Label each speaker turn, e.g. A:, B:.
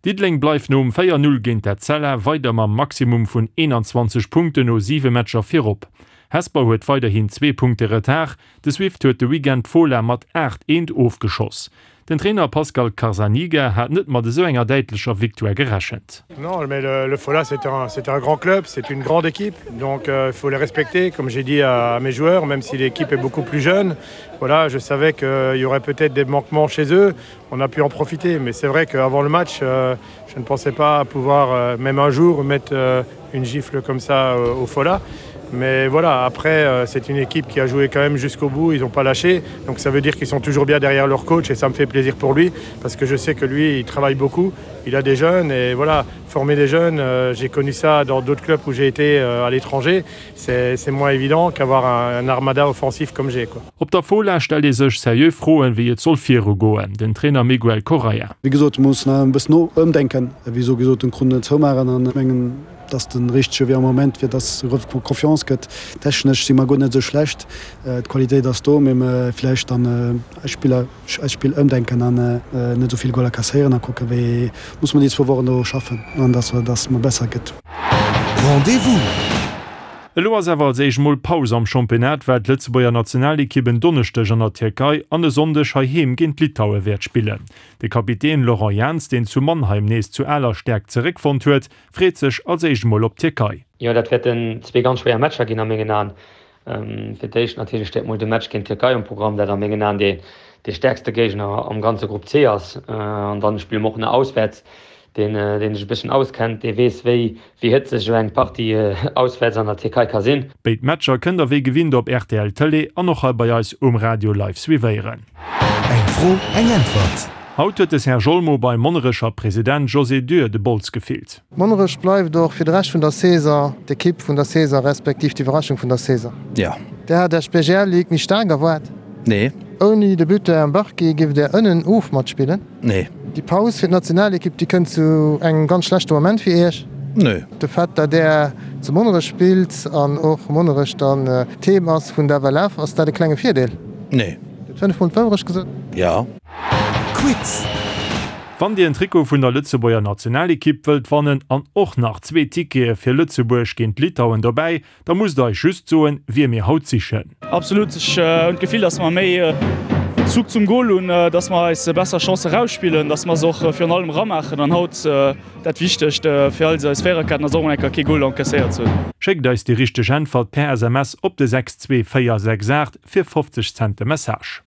A: Diddeleng bleift nom 4, 0 géint d'Etzella weider mam Maximum vun 21 Punkten no 7 Matcher virop. Hesper huet weiderhin zwee Punkte Retard, de Swift huet de Weekend d'Fola mat 8, 1 ofgeschoss. Den Trainer Pascal Carzaniga hat net mat esou enger däitlecher Victoire gerechent.
B: Non, mais le, le Fola c'est un, c'est un grand club, c'est une grande équipe, donc euh, il faut les respecter, comme j'ai dit à, à mes joueurs, même si l'équipe est beaucoup plus jeune. Voilà, je savais qu'il y aurait peut-être des manquements chez eux, on a pu en profiter, mais c'est vrai qu'avant le match, euh, je ne pensais pas pouvoir euh, même un jour mettre euh, une gifle comme ça euh, au Fola. Mais voilà, après, euh, c'est une équipe qui a joué quand même jusqu'au bout, ils n'ont pas lâché. Donc ça veut dire qu'ils sont toujours bien derrière leur coach et ça me fait plaisir pour lui parce que je sais que lui, il travaille beaucoup, il a des jeunes et voilà, former des jeunes, euh, j'ai connu ça dans d'autres clubs où j'ai été euh, à l'étranger, c'est moins évident qu'avoir un, un armada offensif comme j'ai.
A: Op der Fola stellt ee sech seriö Froen, wéi et soll virugoen. Den Trainer Miguel Correia.
C: Wéi gesot, mir mussen e bëssen ëmdenken, wéi sou gesot den Krunn zoumaachen an ech mengen, et ass de richtege Wee am Moment, fir dass et erëm Confiance gëtt. Technesch si mer guer net esou schlecht, d'Qualitéit ass do, mee vläicht dann eis Spiller, eist Spill ëmdenken an net esou vill Goler kasséieren a kucken, wéi muss mer déi zwou Wochen do schaffen an dass dass mer besser gëtt.
A: Rendez-vous! Elo ass awer als éischt mol Paus am Championnat, well d'Lëtzebuerger Nationalekipp en Donneschdeg an der Tierkei an e Sonndeg heiheem géint Litaue wäert spillen. De Kapitän Laurent Jans, deen zu Mannheim nees zu aler Stäerkt zeréckfonnt huet, freet sech als éischt mol op d'Tierkei.
D: Jo, dat wäerten zwee ganz schwéier Matcher ginn a mengen Aen. Fir d'éischt natierlech steet mol de Match géint d'Tierkei um Programm, dat a mengen Aen dee stäerkste Géigner am ganze Grupp C ass. An dann spille mer och nach auswäerts. Deen, deen sech e bësschen auskennt, dee weess, wéi wéi hëtzeg esou eng Partie auswäerts an der Tierkei ka sinn.
A: Béid Matcher kënnt der wéi gewinnt op rtl Tëlee an och hei bei eis um Radio live suivéieren.
E: Eng Fro, eng Äntwert.
A: Haut huet de Serge Olmo beim Monnerecher President José Dürr de Bols gefillt.
F: Monnerech bleift och fir de Rescht vun der Saison d'Ekipp vun der Saison, respektiv d'Iwwerraschung vun der Saison.
G: Jo.
F: Där hat Iech d'BGL Ligue méi staark erwaart?
G: Nee.
F: Ouni de Buteur Mbarki giff Där ënnen of matspillen?
G: Nee.
F: Déi Paus fir d'Nationalekipp, déi kënnt zu engem ganz schlechte Moment fir Iech?
G: Nee.
F: De Fait, datt Där zu Monnerech spillt an och Monnerech dann d'Heem ass vun der FLF, ass dat e klenge Virdeel?
G: Nee.
F: Dir hutt 5 mol d'Wourecht gesot?
G: Jo.
E: Quiz!
A: Wann Dir en Trikot vun der Lëtzebuerger Nationalekipp wëllt wannen an och nach zwee Tickete fir Lëtzebuerg géint Litauen dobäi, da musst der eis just soen, wie mir haut sichen.
H: Absolut, ech hunn d'Gefill, dass mer méi Zug zum Gol hunn, dass mer eis besser Chancë rausspillen, dass mer se och virun allem ramaachen an haut dat Wichtegst fir eis eis Véiererketten ass och mol eng Kéier kee Gol encaisséiert ze hunn.
A: Schéckt eis déi richteg Äntwert per SMS op de 62468 fir 50 Cent de Message.